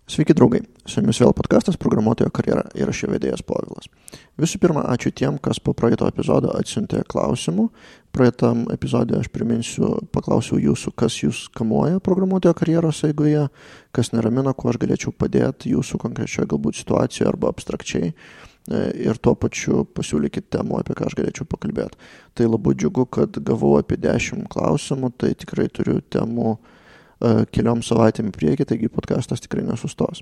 Sveiki draugai, su jumis vėl podkastas Programuotojo karjera ir aš jo vedėjas Povilas. Visų pirma, ačiū tiem, kas po praeito epizodo atsiuntė klausimų. Praeitam epizode aš paklausiau jūsų, kas jūs kamuoja programuotojo karjeros eigoje, kas neramina, kuo aš galėčiau padėti jūsų konkrečioje galbūt situacijoje arba abstrakčiai. Ir tuo pačiu pasiūlykit temų, apie ką aš galėčiau pakalbėti. Tai labai džiugu, kad gavau apie 10 klausimų, tai tikrai turiu temų keliom savaitėm į priekį, taigi podcastas tikrai nesustos.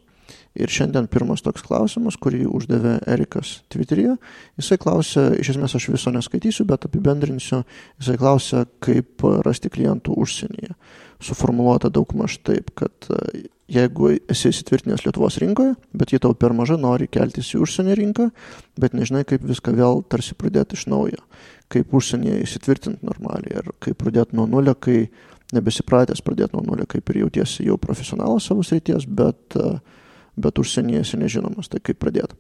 Ir šiandien pirmas toks klausimas, kurį uždavė Erikas Twitteryje. Jisai klausė, iš esmės aš viso neskaitysiu, bet apibendrinsiu, jisai klausė, kaip rasti klientų užsienyje. Suformuluota daugmaž taip, kad jeigu esi įsitvirtinęs Lietuvos rinkoje, bet ji tau per maža, nori keltis į užsienio rinką, bet nežinai, kaip viską vėl tarsi pradėti iš naujo, kaip užsienyje įsitvirtinti normaliai ir kaip pradėti nuo nulio, kai nebesipratęs pradėti nuo nulio, kaip ir jautiesi jau profesionalas savo srities, bet užsienyje esi nežinomas, tai kaip pradėti.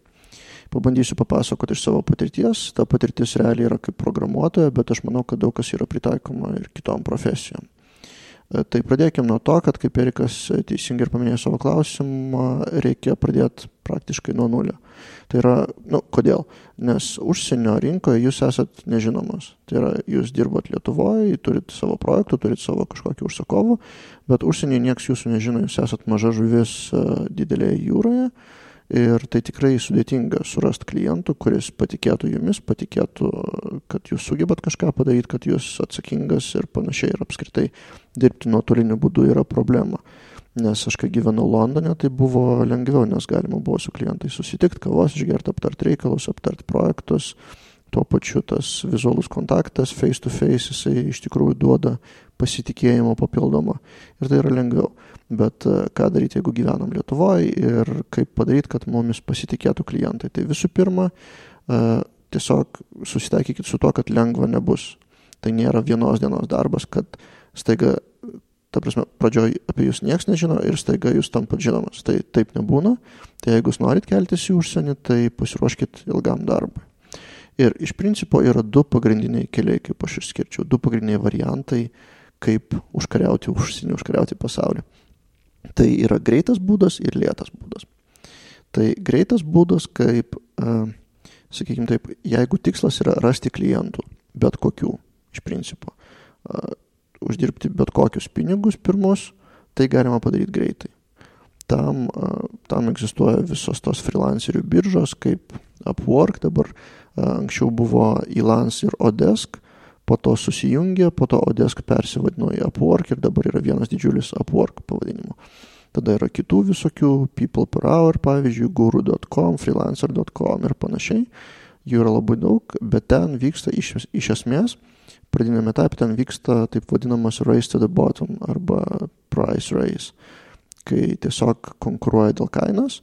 Pabandysiu papasakoti iš savo patirties, ta patirtis realiai yra kaip programuotoja, bet aš manau, kad daug kas yra pritaikoma ir kitom profesijom. Tai pradėkime nuo to, kad kaip Erikas teisingai ir paminėjo savo klausimą, reikia pradėti praktiškai nuo nulio. Tai yra, kodėl? Nes užsienio rinkoje jūs esat nežinomas. Tai yra, jūs dirbat Lietuvoje, turit savo projektų, turit savo kažkokį užsakovų, bet užsienyje nieks jūsų nežino, jūs esat maža žuvis didelėje jūroje. Ir tai tikrai sudėtinga surasti klientų, kuris patikėtų jumis, patikėtų, kad jūs sugebat kažką padaryti, kad jūs atsakingas ir panašiai. Ir apskritai dirbti nuotoliniu būdu yra problema. Nes aš kai gyvenau Londone, tai buvo lengviau, nes galima buvo su klientais susitikti, kavos išgerti, aptarti reikalus, aptarti projektus. Tuo pačiu tas vizualus kontaktas, face to face, jisai iš tikrųjų duoda pasitikėjimo papildomą. Ir tai yra lengviau. Bet ką daryti, jeigu gyvenam Lietuvoje ir kaip padaryti, kad mumis pasitikėtų klientai. Tai visų pirma, tiesiog susitaikykit su to, kad lengva nebus. Tai nėra vienos dienos darbas, kad staiga, ta prasme, pradžioj apie jūs nieks nežino ir staiga jūs tampat žinomas. Tai taip nebūna. Tai jeigu jūs norit keltis į užsienį, tai pasiruoškit ilgam darbui. Ir iš principo yra 2 pagrindiniai keliai, kaip aš išskirčiau, 2 pagrindiniai variantai, kaip užkariauti užsienį, užkariauti pasaulį. Tai yra greitas būdas ir lėtas būdas. Tai greitas būdas, kaip, sakykime taip, jeigu tikslas yra rasti klientų, bet kokių, iš principo, uždirbti bet kokius pinigus pirmus, tai galima padaryti greitai. Tam egzistuoja visos tos freelancerių biržos, kaip Upwork, dabar anksčiau buvo Elance ir Odesk, po to susijungė, po to Odesk persivadino į Upwork ir dabar yra vienas didžiulis Upwork pavadinimu. Tada yra kitų visokių, People per Hour, pavyzdžiui, Guru.com, Freelancer.com ir panašiai. Jų yra labai daug, bet ten vyksta iš esmės, pradinėme etape ten vyksta taip vadinamas race to the bottom arba price race, kai tiesiog konkuruoja dėl kainos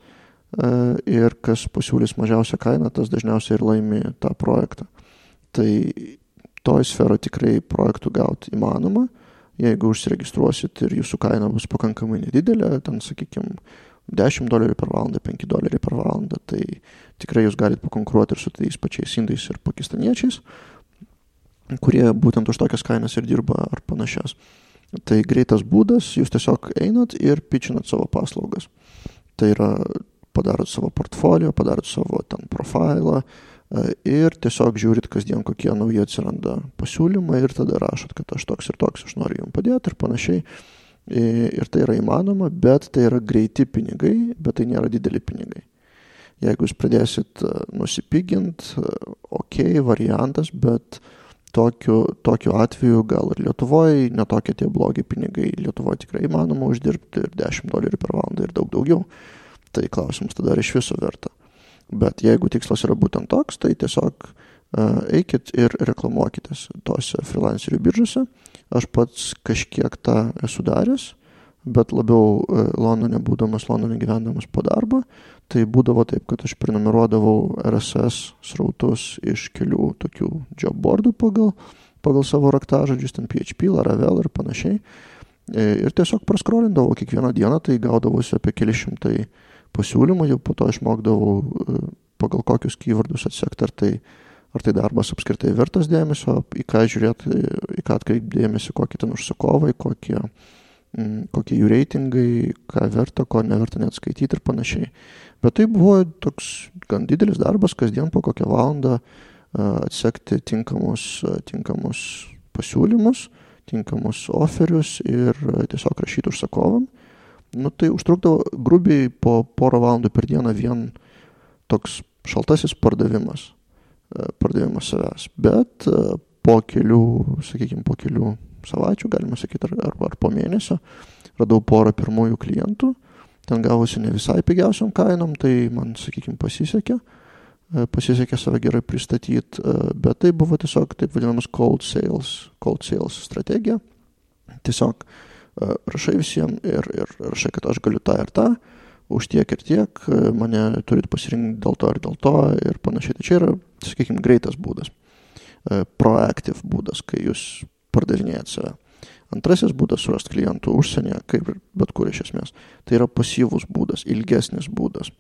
ir kas pasiūlys mažiausią kainą, tas dažniausiai ir laimi tą projektą. Tai toj sferoje tikrai projektų gauti įmanoma, jeigu užsiregistruosit ir jūsų kaina bus pakankamai nedidelė, ten, sakykime, $10 per valandą, $5 per valandą, tai tikrai jūs galite pakonkuruoti ir su tais pačiais indais ir pakistaniečiais, kurie būtent už tokias kainas ir dirba ar panašias. Tai greitas būdas, jūs tiesiog einat ir pitchinat savo paslaugas. Tai yra, padarot savo portfolio, padarot savo ten profilą ir tiesiog žiūrit kasdien, kokie nauji atsiranda pasiūlymai ir tada rašot, kad aš toks ir toks, aš noriu jums padėti ir panašiai. Ir tai yra įmanoma, bet tai yra greiti pinigai, bet tai nėra dideli pinigai. Jeigu jūs pradėsit nusipigint, variantas, bet tokiu atveju gal ir Lietuvoje netokie tie blogi pinigai. Lietuvoje tikrai įmanoma uždirbti ir $10 per valandą ir daug daugiau. Tai klausimas tada iš viso verta. Bet jeigu tikslas yra būtent toks, tai tiesiog eikit ir reklamuokitės tose freelancerių biržose. Aš pats kažkiek tą esu daręs, bet labiau Londone gyvendamas po darbo. Tai būdavo taip, kad aš prenumeruodavau RSS srautus iš kelių tokių job boardų pagal savo raktažodžius, ten PHP, Laravel ir panašiai. Ir tiesiog praskrolindavau kiekvieną dieną, tai gaudavosi apie keli šimtai pasiūlymų, jau po to išmokdavau pagal kokius keywordus atsekti, ar tai darbas apskritai vertas dėmesio, į ką žiūrėti, į ką atkreipti dėmesį, kokie ten užsakovai, kokie kokie jų reitingai, ką verta, ko neverta net skaityti ir panašiai. Bet tai buvo toks gan didelis darbas, kasdien po kokią valandą atsekti tinkamus pasiūlymus, tinkamus oferius ir tiesiog rašyti užsakovam. Tai užtrukdavo grubiai po porą valandų per dieną vien toks šaltasis pardavimas savęs. Bet po kelių savaičių, galima sakyti, ar po mėnesio, radau porą pirmųjų klientų. Ten gavosi ne visai pigiausiom kainom, tai man, pasisekė save gerai pristatyti, bet tai buvo tiesiog taip vadinamas cold sales strategija. Tiesiog rašai visiems ir rašai, kad aš galiu tą ir tą, už tiek ir tiek, mane turit pasirinkti dėl to ir dėl to ir panašiai. Tai čia yra, greitas būdas, proactive būdas, kai jūs pardavinėjat save. Antrasis būdas surasti klientų užsienyje, kaip ir bet kur iš esmės. Tai yra pasyvus būdas, ilgesnis būdas.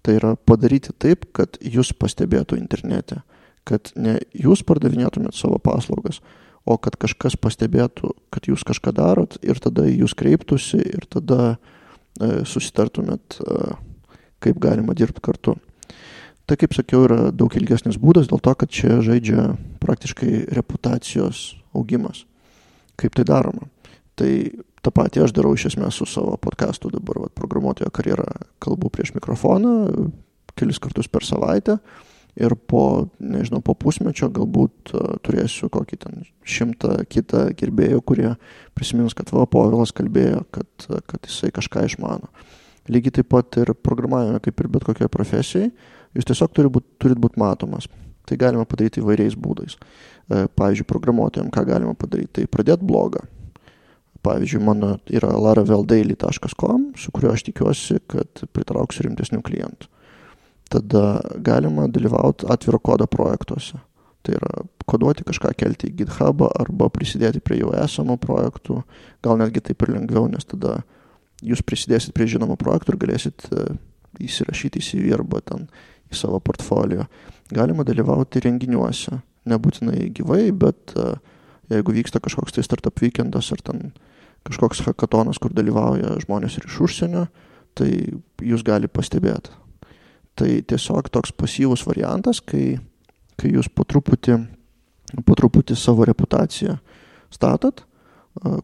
Tai yra padaryti taip, kad jūs pastebėtų internete, kad ne jūs pardavinėtumėt savo paslaugas, o kad kažkas pastebėtų, kad jūs kažką darot ir tada jūs kreiptųsi ir tada susitartumėt, kaip galima dirbti kartu. Tai, kaip sakiau, yra daug ilgesnis būdas dėl to, kad čia žaidžia praktiškai reputacijos augimas. Kaip tai daroma? Tai tą patį aš darau iš esmės su savo podcastu dabar, programuotojo karjerą, kalbu prieš mikrofoną kelis kartus per savaitę ir po pusmečio galbūt turėsiu kokį 100 kitą gerbėjų, kurie prisimins, kad Povilas kalbėjo, kad jisai kažką išmano. Lygiai taip pat ir programavime, kaip ir bet kokioje profesijai, jūs tiesiog turit būt matomas. Tai galima padaryti įvairiais būdais. Pavyzdžiui, programuotojams ką galima padaryti? Tai pradėti blogą. Pavyzdžiui, mano yra laraveldaily.com, su kuriuo aš tikiuosi, kad pritrauksiu rimtesnių klientų. Tada galima dalyvauti atviro kodo projektuose. Tai yra koduoti kažką, kelti į GitHubą arba prisidėti prie jau esamų projektų. Gal netgi taip ir lengviau, nes tada jūs prisidėsit prie žinomų projektų ir galėsit įsirašyti į CV arba ten į savo portfolio. Galima dalyvauti renginiuose. Nebūtinai gyvai, bet jeigu vyksta kažkoks tai startup weekendas ar ten kažkoks hackatonas, kur dalyvauja žmonės ir iš užsienio, tai jūs gali pastebėti. Tai tiesiog toks pasyvus variantas, kai jūs po truputį savo reputaciją statat,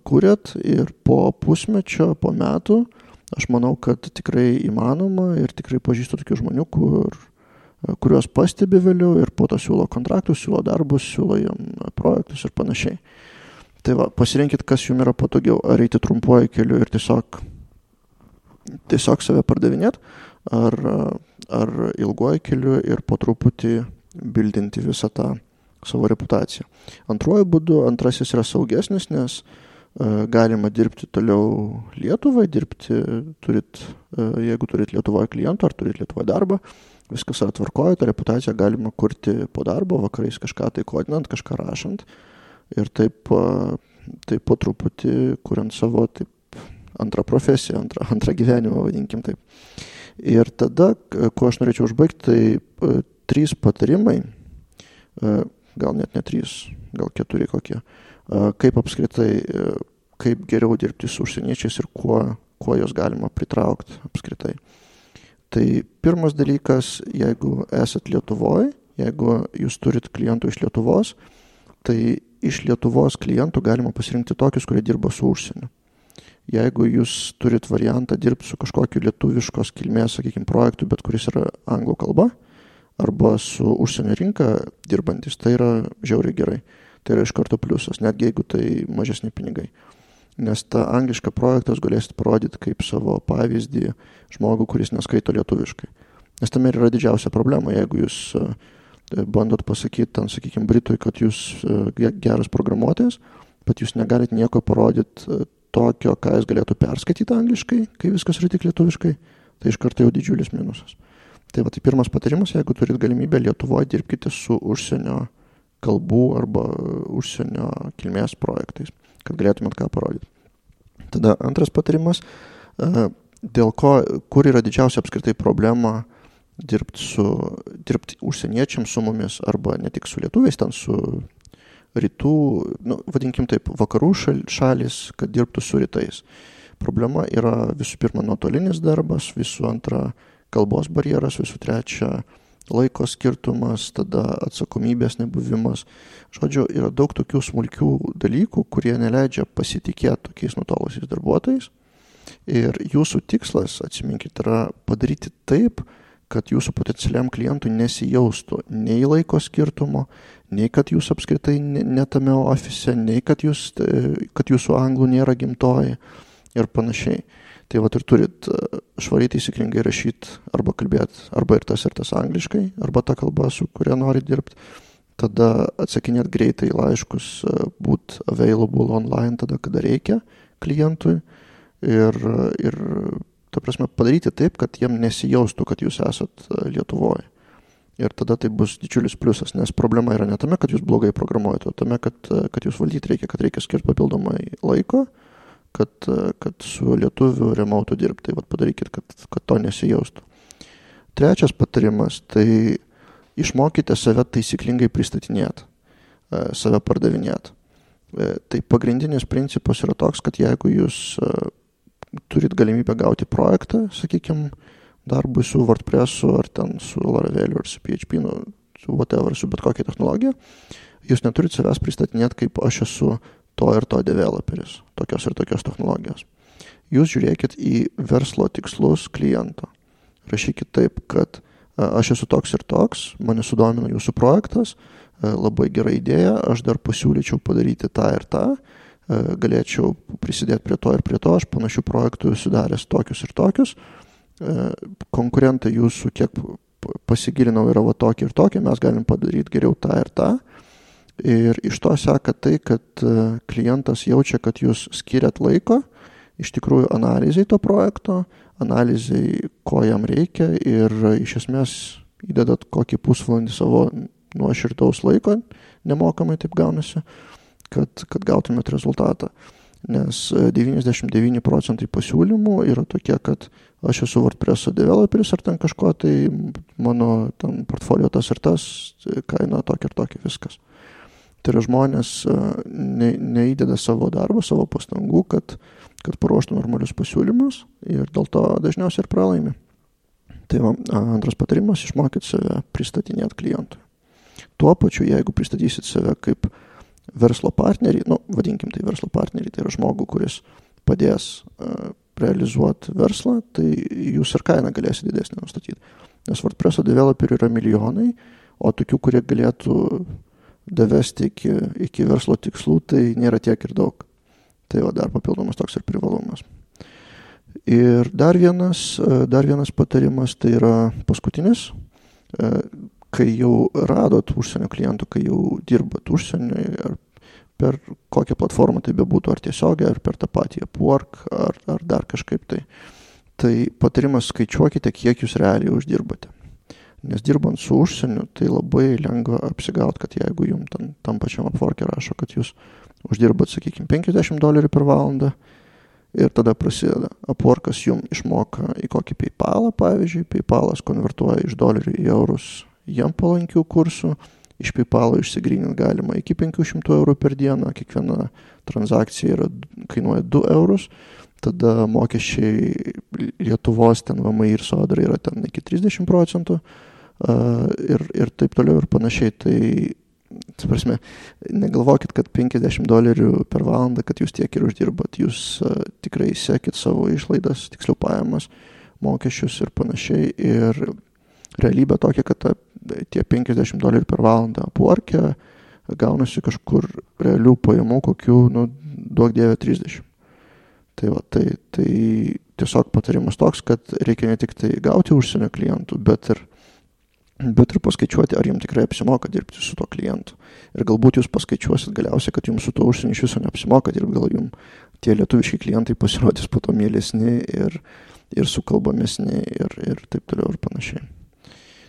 kuriat ir po pusmečio, po metų, aš manau, kad tikrai įmanoma ir tikrai pažįstu tokių žmonių, kuriuos pastebi vėliau ir po to siūlo kontraktus, siūlo darbus, siūlo jam projektus ir panašiai. Tai pasirinkit, kas jums yra patogiau, ar eiti trumpuoju keliu ir tiesiog save pardavinėt, ar ilguoju keliu ir po truputį bildinti visą tą savo reputaciją. Antrasis yra saugesnis, nes galima dirbti toliau Lietuvai, jeigu turit Lietuvoje klientų ar turit Lietuvoje darbą, viskas yra tvarkoje, tą reputaciją galima kurti po darbo, vakarais kažką tai kodinant, kažką rašant ir taip po truputį kuriant savo antrą profesiją, antrą gyvenimą, vadinkim taip. Ir tada, ko aš norėčiau užbaigti, tai 3 patarimai, gal net ne 3, gal 4 kokie, kaip apskritai, kaip geriau dirbti su užsieniečiais ir kuo jos galima pritraukti apskritai. Tai pirmas dalykas, jeigu esat Lietuvoje, jeigu jūs turit klientų iš Lietuvos, tai iš Lietuvos klientų galima pasirinkti tokius, kurie dirba su užsieniu. Jeigu jūs turit variantą dirbti su kažkokiu lietuviškos kilmės, projektu, bet kuris yra anglų kalba, arba su užsienio rinka dirbantis, tai yra žiauriai gerai. Tai yra iš karto pliusas, netgi jeigu tai mažesni pinigai. Nes tą anglišką projektą galėsit parodyti kaip savo pavyzdį žmogų, kuris neskaito lietuviškai. Nes tame yra didžiausia problema, jeigu jūs bandot pasakyti, Britui, kad jūs geras programuotojas, bet jūs negalit nieko parodyti tokio, ką jis galėtų perskaityti angliškai, kai viskas yra tik lietuviškai, tai iš karto jau didžiulis minusas. Tai pirmas patarimas, jeigu turit galimybę Lietuvoje, dirbkite su užsienio kalbų arba užsienio kilmės projektais, kad galėtumėt ką parodyti. Tada antras patarimas, kur yra didžiausia apskritai problema dirbti užsieniečiams su mumis, arba ne tik su lietuviais, ten su rytų, vadinkim taip, vakarų šalis, kad dirbtų su rytais. problema yra visų pirma nuotolinis darbas, visų antra kalbos barjeras, visų trečia laiko skirtumas, tada atsakomybės nebuvimas. Žodžiu, yra daug tokių smulkių dalykų, kurie neleidžia pasitikėti tokiais nutolusiais darbuotojais. Ir jūsų tikslas, atsiminkit, yra padaryti taip, kad jūsų potencialiam klientui nesijaustų nei laiko skirtumo, nei kad jūs apskritai netame ofise, nei kad jūsų anglų nėra gimtoji ir panašiai. Tai vat ir turit švariai taisyklingai rašyti arba kalbėti arba ir tas angliškai, arba ta kalba, su kuria nori dirbti. Tada atsakinėti greitai laiškus, būt available online tada, kada reikia klientui ir ta prasme, padaryti taip, kad jiem nesijaustų, kad jūs esat Lietuvoje. Ir tada tai bus didžiulis pliusas, nes problema yra ne tame, kad jūs blogai programuojate, o tame, kad jūs valdyti reikia, kad reikia skirti papildomai laiko, kad su lietuviu remotu dirbti. Tai vat padarykit, kad to nesijaustų. Trečias patarimas, tai išmokite save taisyklingai pristatinėti, save pardavinėti. Tai pagrindinis principas yra toks, kad jeigu jūs turit galimybę gauti projektą, sakykime, darbui su WordPressu, ar ten su Laraveliu, ar su PHP, su whatever, su bet kokia technologija, jūs neturit savęs pristatinėti, kaip aš esu to ir to developeris, tokios ir tokios technologijos. Jūs žiūrėkit į verslo tikslus kliento. Rašykit taip, kad aš esu toks ir toks, mane sudomino jūsų projektas, labai gera idėja, aš dar pasiūlyčiau padaryti tą ir tą, galėčiau prisidėti prie to ir prie to, aš panašių projektų sudaręs tokius ir tokius, konkurentai jūsų kiek pasigilinau yra va tokie ir tokie, mes galim padaryti geriau tą ir tą. Ir iš to seka tai, kad klientas jaučia, kad jūs skiriat laiko, iš tikrųjų analizai to projekto, analizai, ko jam reikia ir iš esmės įdedat kokį pusvalandį savo nuoširdaus laiko, nemokamai taip gaunasi, kad gautumėt rezultatą. Nes 99% pasiūlymų yra tokie, kad aš esu WordPresso developeris ar ten kažko, tai mano ten portfolio tas ir tas, kaina tokia ir tokia, viskas. Tai yra žmonės neįdeda savo darbą, savo pastangų, kad paruoštų normalius pasiūlymus ir dėl to dažniausiai ir pralaimi. Tai antras patarimas, išmokit save pristatinėti klientui. Tuo pačiu, jeigu pristatysit save kaip verslo partnerį, vadinkim tai verslo partnerį, tai yra žmogų, kuris padės realizuoti verslą, tai jūs ir kainą galėsite didesnį nustatyti. Nes WordPresso developerių yra milijonai, o tokių, kurie galėtų davesti iki verslo tikslų, tai nėra tiek ir daug. Tai va dar papildomas toks ir privalumas. Ir dar vienas patarimas, tai yra paskutinis, kai jau radot užsienio klientų, kai jau dirbat užsienio, ar per kokią platformą tai bebūtų, ar tiesiogiai, ar per tą patį Upwork, ar dar kažkaip tai patarimas skaičiuokite, kiek jūs realiai uždirbate. Nes dirbant su užsieniu, tai labai lengva apsigauti, kad jeigu jums tam pačiam Upwork'e rašo, kad jūs uždirbat, sakykime, $50 per valandą ir tada prasideda. Upwork'as jums išmoka į kokį PayPalą, pavyzdžiui, PayPalas konvertuoja iš dolerių į eurus jam palankių kursų, iš PayPal'o išsigryninti galima iki €500 per dieną, kiekviena transakcija kainuoja €2, tada mokesčiai Lietuvos, ten VMI ir Sodra yra ten iki 30%, ir taip toliau ir panašiai. Tai prasme, negalvokit, kad $50 per valandą, kad jūs tiek ir uždirbat. Jūs tikrai sekit savo išlaidas, tiksliau pajamas, mokesčius ir panašiai. Ir realybė tokia, kad tie $50 per valandą Upwork'e gaunasi kažkur realių pajamų kokių, duok dieve 30. Tai va, tai tiesiog patarimas toks, kad reikia ne tik tai gauti užsienio klientų, bet ir paskaičiuoti, ar jums tikrai apsimoka dirbti su to klientu. Ir galbūt jūs paskaičiuosit galiausiai, kad jums su to užsieniu iš viso neapsimoka dirbti, gal jums tie lietuviški klientai pasirodys po to mielesni ir sukalbamesni ir taip toliau ir panašiai.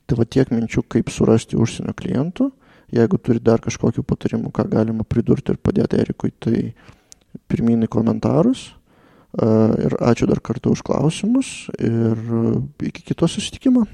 Tai va tiek minčių, kaip surasti užsienio klientų. Jeigu turi dar kažkokių patarimų, ką galima pridurti ir padėti Erikui, tai pirmyn į komentarus. Ir ačiū dar kartą už klausimus ir iki kito susitikimo.